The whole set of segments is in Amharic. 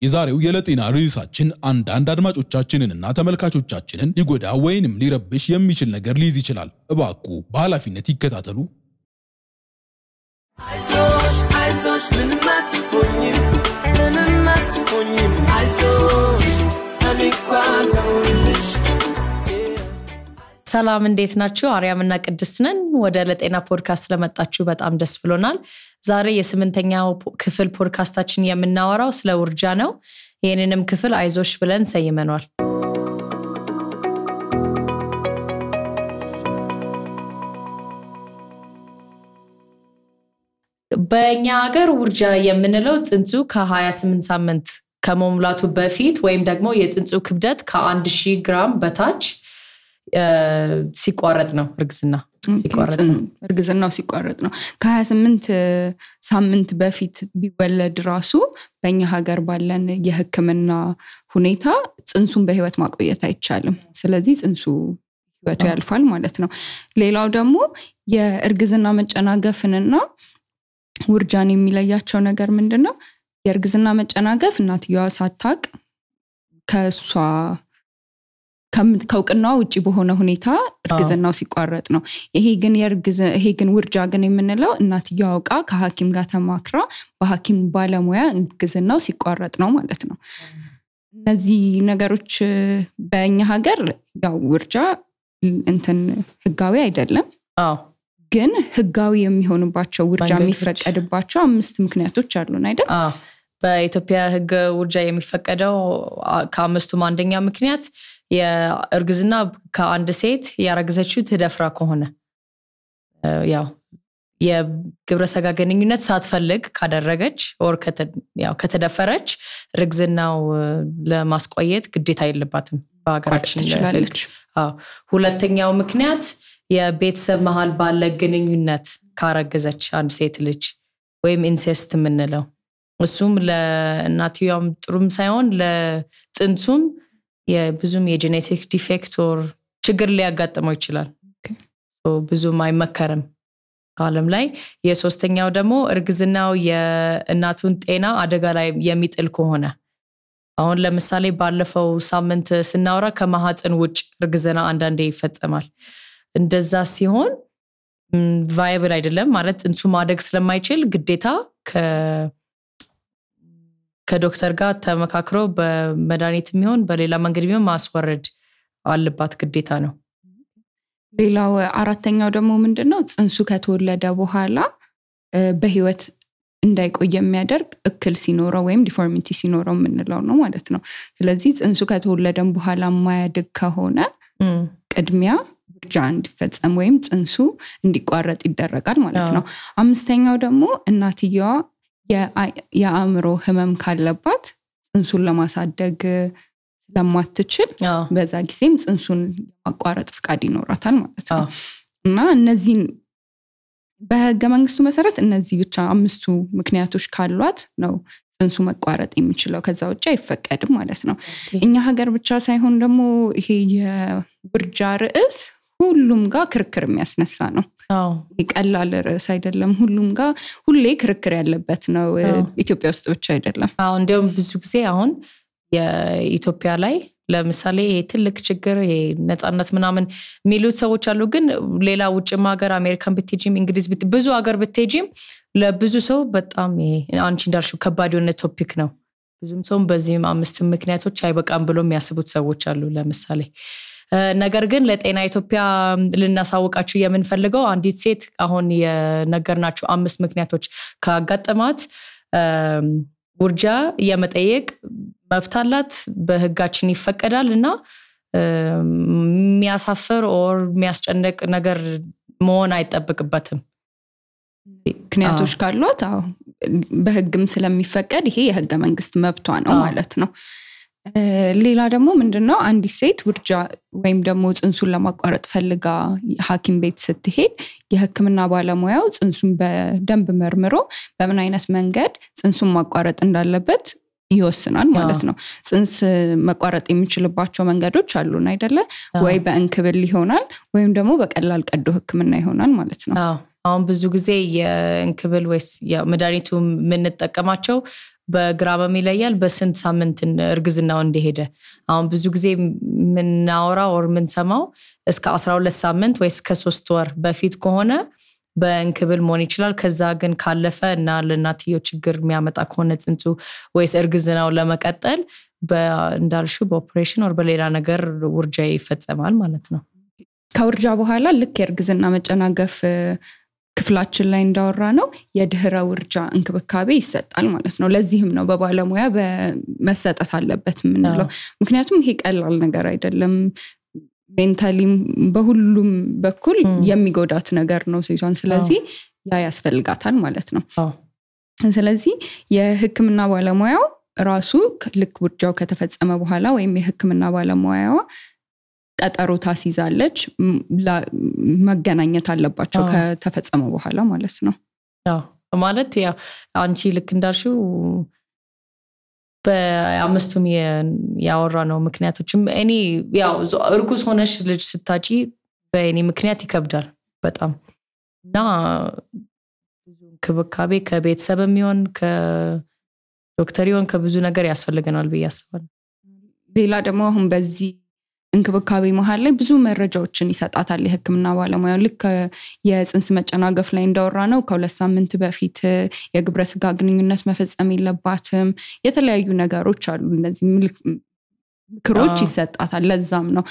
የዛሬው የለጤና ርዕሳችን አንዳንድ አድማጮቻችንንና ተመልካቾቻችንን ሊጎዳ ወይንም ሊረብሽ የሚችል ነገር ሊይዝ ይችላል። እባክዎ በኃላፊነት ይከታተሉ። አይዞሽ ምንም አትሆኝም አይዞሽ አልኳልሽ። ሰላም እንዴት ናችሁ? አርያምና ቅድስት ነን። ወደ ለጤና ፖድካስት ስለመጣችሁ በጣም ደስ ብሎናል። ዛሬ የስምንተኛው ክፍል ፖድካስታችን የምናወራው ስለ ውርጃ ነው። ይሄንንም ክፍል አይዞሽ ብለን ሰይመናል። በእኛ ሀገር ውርጃ የምንለው ጽንሱ ከ28 ሳምንት ከመሙላቱ በፊት ወይም ደግሞ የጽንሱ ክብደት ከ1000 ግራም በታች ሲቋረጥ ነው። እርግዝናው ሲቋረጥ ነው። ከ28 ሳምንት በፊት ቢወለድ ራሱ በእኛ ሀገር ባለን የሕክምና ሁኔታ ጽንሱን በህይወት ማቆየት አይቻልም። ስለዚህ ጽንሱ ህይወቱ ያልፋል ማለት ነው። ሌላው ደግሞ የእርግዝና መጨናገፍንና ውርጃን የሚለያቸው ነገር ምንድነው? የእርግዝና መጨናገፍ እናትየዋ ሳታቅ ከሷ ከውቅናው ውጪ በሆነ ሁኔታ እርግዝናው ሲቋረጥ ነው። ይሄ ግን ውርጃ ግን የምንለው እናትየዋ አውቃ ከሐኪም ጋር ተማክራ በሐኪም ባለሙያ እርግዝናው ሲቋረጥ ነው ማለት ነው። እነዚህ ነገሮች በእኛ ሀገር ያው ውርጃ ህጋዊ አይደለም። ግን ህጋዊ የሚሆኑባቸው ውርጃ የሚፈቀድባቸው 5 ምክንያቶች አሉን አይደል? በኢትዮጵያ ህግ ውርጃ የሚፈቀደው ከ5ቱም አንደኛ ምክንያት የእርግዝና ከአንድ ሴት ያረገዘችው ተደፍራ ከሆነ ያው የግብረ ስጋ ግንኙነት ሳትፈልግ ካደረገች or ከተደፈረች እርግዝናው ለማስቆየት ግዴታ የለባትም በአገራችን ትችላለች። ሁለተኛው ምክንያት የቤተሰብ መሃል ባለ ግንኙነት ካረገዘች አንድ ሴት ልጅ ወይም ኢንሴስት ምንለው እሱም ለእናትየዋም ጥሩም ሳይሆን ለጽንሱም የብዙም የጄኔቲክ ዲፌክት or ችግር ሊያጋጥመው ይችላል። ብዙም አይመከርም ዓለም ላይ። የሶስተኛው ደግሞ እርግዝናው የእናቱን ጤና አደጋ ላይ የሚጥል ከሆነ አሁን ለምሳሌ ባለፈው ሳምንት ስናወራ ከማህፀን ውጭ እርግዝና አንዳንዴ ይፈጸማል። እንደዛ ሲሆን ቫይብል አይደለም ማለት ጽንሱ ማደግ ስለማይችል ግዴታ ከዶክተር ጋር ተመካክሮ በመድኃኒት የሚሆን በሌላ መንገድ ቢሆን ማስወረድ አለባት ግዴታ ነው። ሌላው አራተኛው ደግሞ ምንድነው? ጽንሱ ከተወለደ በኋላ በህይወት እንዳይቆይ የሚያደርግ እክል ሲኖረው ወይም ዲፎርሚቲ ሲኖረው ምንለው ነው ማለት ነው። ስለዚህ ጽንሱ ከተወለደም በኋላ ማያድግ ከሆነ ቅድሚያ ውርጃ እንዲፈጸም ወይም ጽንሱ እንዲቋረጥ ይደረጋል ማለት ነው። አምስተኛው ደግሞ እናትየዋ የአእምሮ ህመም ካለባት ጽንሱን ለማሳደግ ስለማትችል በዛ ጊዜም ጽንሱን ማቋረጥ ፍቃድ ይኖራታል ማለት ነው። እና እነዚህን በህገ መንግስቱ መሰረት እነዚህ ብቻ 5ቱ ምክንያቶች ካሏት ነው ጽንሱ መቋረጥ የሚችለው። ከዛ ውጪ አይፈቀድም ማለት ነው። እኛ ሀገር ብቻ ሳይሆን ደግሞ ይሄ የውርጃ ርዕስ ሁሉም ጋር ክርክር የሚያስነሳ ነው። ቀላል ርዕስ አይደለም። ሁሉም ጋር ሁሌ ክርክር ያለበት ነው። ኢትዮጵያ ውስጥ ብቻ አይደለም። እንደውም ብዙ ጊዜ አሁን የኢትዮጵያ ላይ ለምሳሌ ትልቅ ችግር የነጻነት ምናምን የሚሉት ሰዎች አሉ። ግን ሌላ ውጭም ሀገር አሜሪካን ብትሄጂም እንግሊዝ ብዙ ሀገር ብትሄጂም ለብዙ ሰው በጣም አንቺ እንዳልሽው ከባድ የሆነ ቶፒክ ነው። ብዙም ሰው በዚህም 5 ምክንያቶች አይበቃም ብሎ የሚያስቡት ሰዎች አሉ ለምሳሌ። ነገር ግን ለጤና ኢትዮጵያ ልናሳውቃችሁ የምንፈልገው አንዲት ሴት አሁን የነገርናችሁ 5 ምክንያቶች ካጋጠማት ውርጃ የመጠየቅ መብት አላት። በህጋችን ይፈቀዳል እና የሚያሳፍር or የሚያስጨንቅ ነገር መሆን አይጠበቅበትም። ምክንያቶች ካሏት በህግም ስለሚፈቀድ ይሄ የህገ መንግስት መብቷ ነው ማለት ነው። ሌላ ደግሞ ምንድነው? አንዲት ሴት ውርጃ ወይም ደግሞ ጽንሱን ለማቋረጥ ፈልጋ ሐኪም ቤት ስትሄድ የህክምና ባለሙያው ጽንሱን በደንብ መርምሮ በምን አይነት መንገድ ጽንሱን ማቋረጥ እንዳለበት ይወስናል ማለት ነው። ጽንስ መቋረጥ የሚችልባቸው መንገዶች አሉን አይደለ? ወይ በእንክብል ይሆናል ወይም ደግሞ በቀላል ቀዶ ህክምና ይሆናል ማለት ነው። አሁን ብዙ ጊዜ የእንክብል ወይስ የመድኃኒቱ የምንጠቀማቸው በግራም ይለያል በስንት ሳምንት እርግዝናው እንደሄደ አሁን ብዙ ጊዜ ምናወራው or ምንሰማው እስከ 12 ሳምንት ወይ እስከ 3 ወር በፊት ከሆነ በእንክብል መሆን ይችላል ከዛ ግን ካለፈ እና ለእናትየው ችግር የሚያመጣ ከሆነ ጽንሱ ወይስ እርግዝናው ለመቀጠል በእንዳልሹ በኦፕሬሽን or በሌላ ነገር ውርጃ ይፈጸማል ማለት ነው ከውርጃ በኋላ ልክ የእርግዝና መጨናገፍ ክፍላችን ላይ እንዳወራ ነው የድህረ ውርጃ እንክብካቤ ይሰጣል ማለት ነው ለዚህም ነው በባለሙያ በመሰጠት አለበት ምንለው ምክንያቱም ይሄ ቀላል ነገር አይደለም ሜንታሊ በሁሉም በኩል የሚጎዳት ነገር ነው ሴቷን ስለዚህ ያ ያስፈልጋታል ማለት ነው ስለዚህ የህክምና ባለሙያው ራሱ ልክ ውርጃው ከተፈጸመ በኋላ ወይም የህክምና ባለሙያዋ ቀጠሮ ታስይዛለች መገናኘት አለባቸው ከተፈጸመ በኋላ ማለት ነው ማለት ያው አንቺ ልክ እንዳልሽው በአምስቱም ያወራ ነው ምክንያቶችም እኔ ያው እርጉዝ ሆነሽ ልጅ ስታጪ በእኔ ምክንያት ይከብዳል በጣም እና ብዙ ክብካቤ ከቤተሰብም ይሁን ከዶክተር ይሁን ከብዙ ነገር ያስፈልገናል በያስባል ሌላ ደግሞ አሁን በዚህ እንክብካቤ መሃል ላይ ብዙ መረጃዎችን ይሰጣታል የህክምና ባለሙያው ልክ የጽንስ መጨናገፍ ላይ እንዳወራ ነው ከ2 ሳምንት በፊት የግብረ ስጋ ግንኙነት መፈጸም የለባትም የተለያዩ ነገሮች አሉ እነዚህ ምክሮች ይሰጣታል ለዛም ነው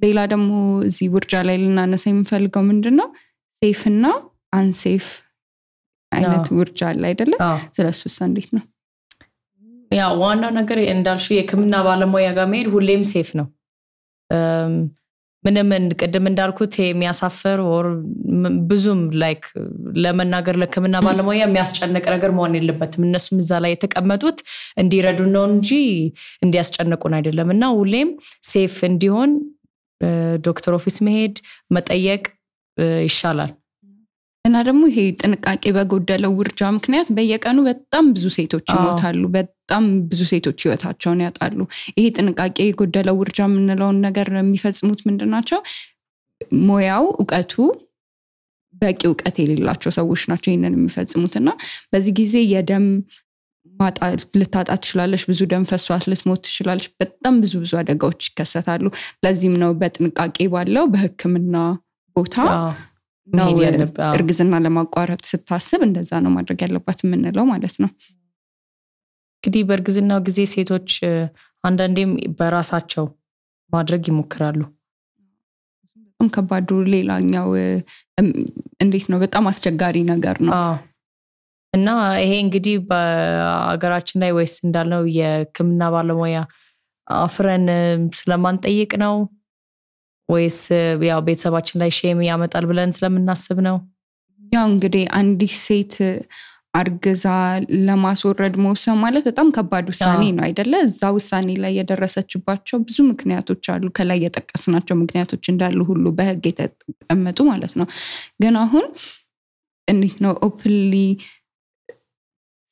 ሌላ ደግሞ እዚህ ውርጃ ላይ ልናነሳ የምፈልገው ምንድነው ሴፍ እና አንሴፍ አይነት ውርጃ አለ አይደለ ስለሱስ እንዴት ነው ያው ዋና ነገር እንዳልሽ የህክምና ባለሙያ ጋር መሄድ ሁሌም ሴፍ ነው ምንም ቀደም እንዳልኩት የሚያሳፈር or ብዙም ላይክ ለመናገር ለህክምና ባለሙያ የሚያስጨንቅ ነገር መሆን የለበትም እነሱም እዛ ላይ የተቀመጡት እንዲረዱ ነው እንጂ እንዲያስጨንቁን አይደለምና ሁሌም ሴፍ እንዲሆን ዶክተር ኦፊስ መሄድ መጠየቅ ይሻላል እና ደግሞ ይሄ ጥንቃቄ በጎደለው ውርጃ ምክንያት በየቀኑ በጣም ብዙ ሴቶች ይሞታሉ በጣም ብዙ ሴቶች ህይወታቸውን ያጣሉ ይሄ ጥንቃቄ የጎደለው ውርጃ ምንለው ነገር የሚፈጽሙት ምንድናቸው ሞያው ዕውቀቱ በቂ ዕውቀት የሌላቸው ሰዎች ናቸው ይሄንን የሚፈጽሙትና በዚህ ጊዜ የደም ማጣት ልታጣ ትችላለሽ ብዙ ደም ፈሷት ልትሞት ትችላለሽ በጣም ብዙ አደጋዎች ይከሰታሉ ለዚህም ነው በጥንቃቄ ባለው በህክምና ቦታ ነው እርግዝና ለማቋረጥ ስታስብ እንደዛ ነው ማድረግ ያለባት ምንለው ማለት ነው እንግዲህ በእርግዝናው ጊዜ ሴቶች አንዳንዴም በራሳቸው ማድረግ ይሞክራሉ በጣም ከባዱ ሌላኛው እንዴት ነው በጣም አስቸጋሪ ነገር ነው እና ይሄ እንግዲህ በአገራችን ላይ ወይስ እንዳልነው የህክምና ባለሙያ አፍረን ስለማንጠይቅ ነው ወይስ ያው ቤተሰባችን ላይ ሼም ያመጣል ብለን ስለምናስብ ነው ያው እንግዲህ አንዲት ሴት አርግዛ ለማስወረድ መውሰን ማለት በጣም ከባድ ውሳኔ ነው አይደለ እዛ ውሳኔ ላይ የደረሰችባቸው ብዙ ምክንያቶች አሉ ከላይ የጠቀስናቸው ምክንያቶች እንዳሉ ሁሉ በህግ የተቀመጡ ማለት ነው ግን አሁን እንዴት ነው ኦፕንሊ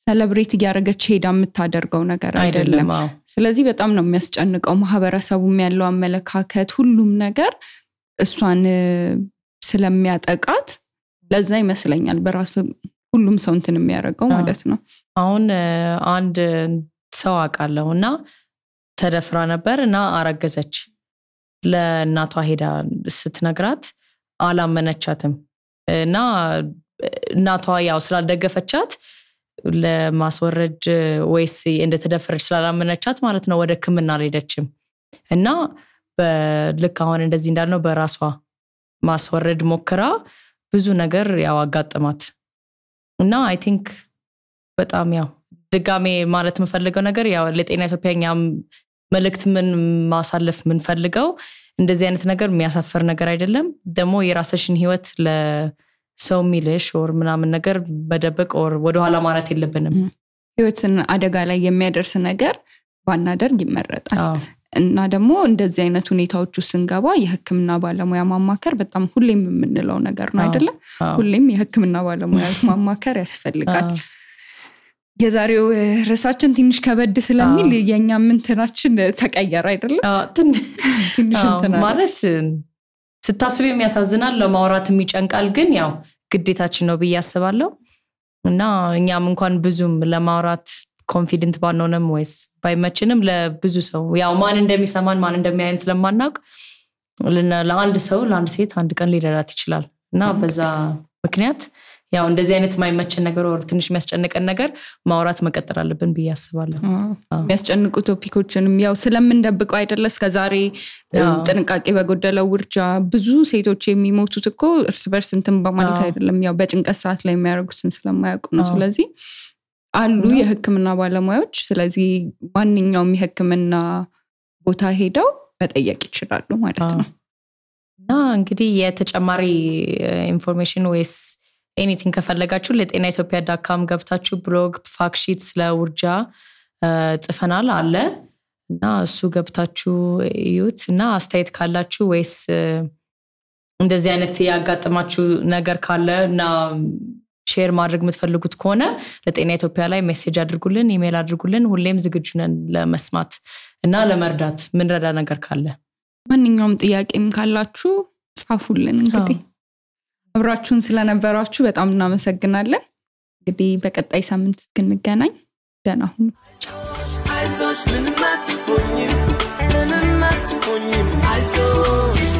ሴሌብሬት ያደረገች ሄዳ የምታደርገው ነገር አይደለም ስለዚህ በጣም ነው የሚያስጨንቀው ማህበረሰቡም ያለው አመለካከት ሁሉም ነገር እሷን ስለሚያጠቃት ለዛ ይመስለኛል በራስ ሁሉም ሰው እንትን የሚያደርገው ማለት ነው አሁን አንድ ሰው አቃለውና ተደፍራ ነበርና አረገዘች ለእናቷ ሄዳ ስትነግራት አላመነቻትም እና እናቷ ያው ስላልደገፈቻት ለማስወረድ ወይስ እንደተደፈረች ስላላመነቻት ማለት ነው ወደ ህክምና አልሄደችም እና በልክ አሁን እንደዚህ እንዳልነው በራሷ ማስወረድ ሞክራ ብዙ ነገር ያው አጋጥማት እና አይ ቲንክ በጣም ያው ድጋሜ ማለት የምፈልገው ነገር ያው ለጤና ኢትዮጵያኛም መልእክት ምን ማሳለፍ ምን ፈልገው እንደዚህ አይነት ነገር የሚያሳፈር ነገር አይደለም ደግሞ የራስሽን ህይወት ለሰው ሚልሽ or ምናምን ነገር በደበቅ or ወደ ኋላ ማለት የለብንም ህይወትን አደጋ ላይ የሚያደርስ ነገር ባናደርግ ይመረጣል እና ደግሞ እንደዚህ አይነት ሁኔታዎች ውስጥ እንገባ የህክምና ባለሙያ ማማከር በጣም ሁሌም የምንለው ነገር ነው አይደለ ሁሌም የህክምና ባለሙያ ማማከር ያስፈልጋል የዛሬው ርዕሳችን ትንሽ ከበድ ስለሚል የኛ ምንትናችን ተቀየረ አይደለ ትንሽ እንትና ማለት ስታስብ የሚያሳዝናል ለማውራት የሚጨንቃል ግን ያው ግዴታችን ነው ብዬ አስባለሁ እና እኛም እንኳን ብዙም ለማውራት ኮንፊደንት ባንሆንም ወይስ ባይመችንም ለብዙ ሰው ያው ማን እንደሚሰማን ማን እንደሚያየን ስለማናውቅ ለአንድ ሰው ለአንድ ሴት አንድ ቀን ሊረዳት ይችላል እና በዛ ምክንያት ያው እንደዚህ አይነት ማይመቸን ነገር ወር ትንሽ የሚያስጨንቀን ነገር ማውራት መቀጠል አለብን ብዬ አስባለሁ። የሚያስጨንቁ ቶፒኮችንም ያው ስለምንደብቀው አይደለ እስከዛሬ ጥንቃቄ በጎደለው ውርጃ ብዙ ሴቶች የሚሞቱት እኮ እርስ በርስ እንትን በማለት አይደለም ያው በጭንቀት ሰዓት ላይ የሚያደርጉትን ስለማያውቁ ነው። ስለዚህ አሉ የህክምና ባለሙያዎች ስለዚህ ማንኛውም የህክምና ቦታ ሄደው መጠየቅ ይችላሉ ማለት ነው። እና እንግዲህ የተጨማሪ ኢንፎርሜሽን ወይስ ኤኒቲንግ ከፈለጋችሁ ለጤናኢትዮጵያ.com ገብታችሁ ብሎግ ፋክት ሺት ስለ ውርጃ ጽፈናል አለ እና እሱ ገብታችሁ እዩት እና አስተያየት ካላችሁ ወይስ እንደዚህ አይነት ያጋጥማችሁ ነገር ካለ እና ሼር ማድረግ የምትፈልጉት ከሆነ ለጤናኢትዮጵያ ላይ ሜሴጅ አድርጉልን ኢሜል አድርጉልን ሁሌም ዝግጁ ነን ለመስማት እና ለመርዳት ምን ረዳ ነገር ካለ ማንኛውም ጥያቄም ካላችሁ ጻፉልን እንግዲህ አብራችሁን ስለነበራችሁ በጣም እናመሰግናለን እንግዲህ በቀጣይ ሳምንት እስክንገናኝ ደህና ሁኑ አይዞሽ ምንም አትሆኚም አይዞሽ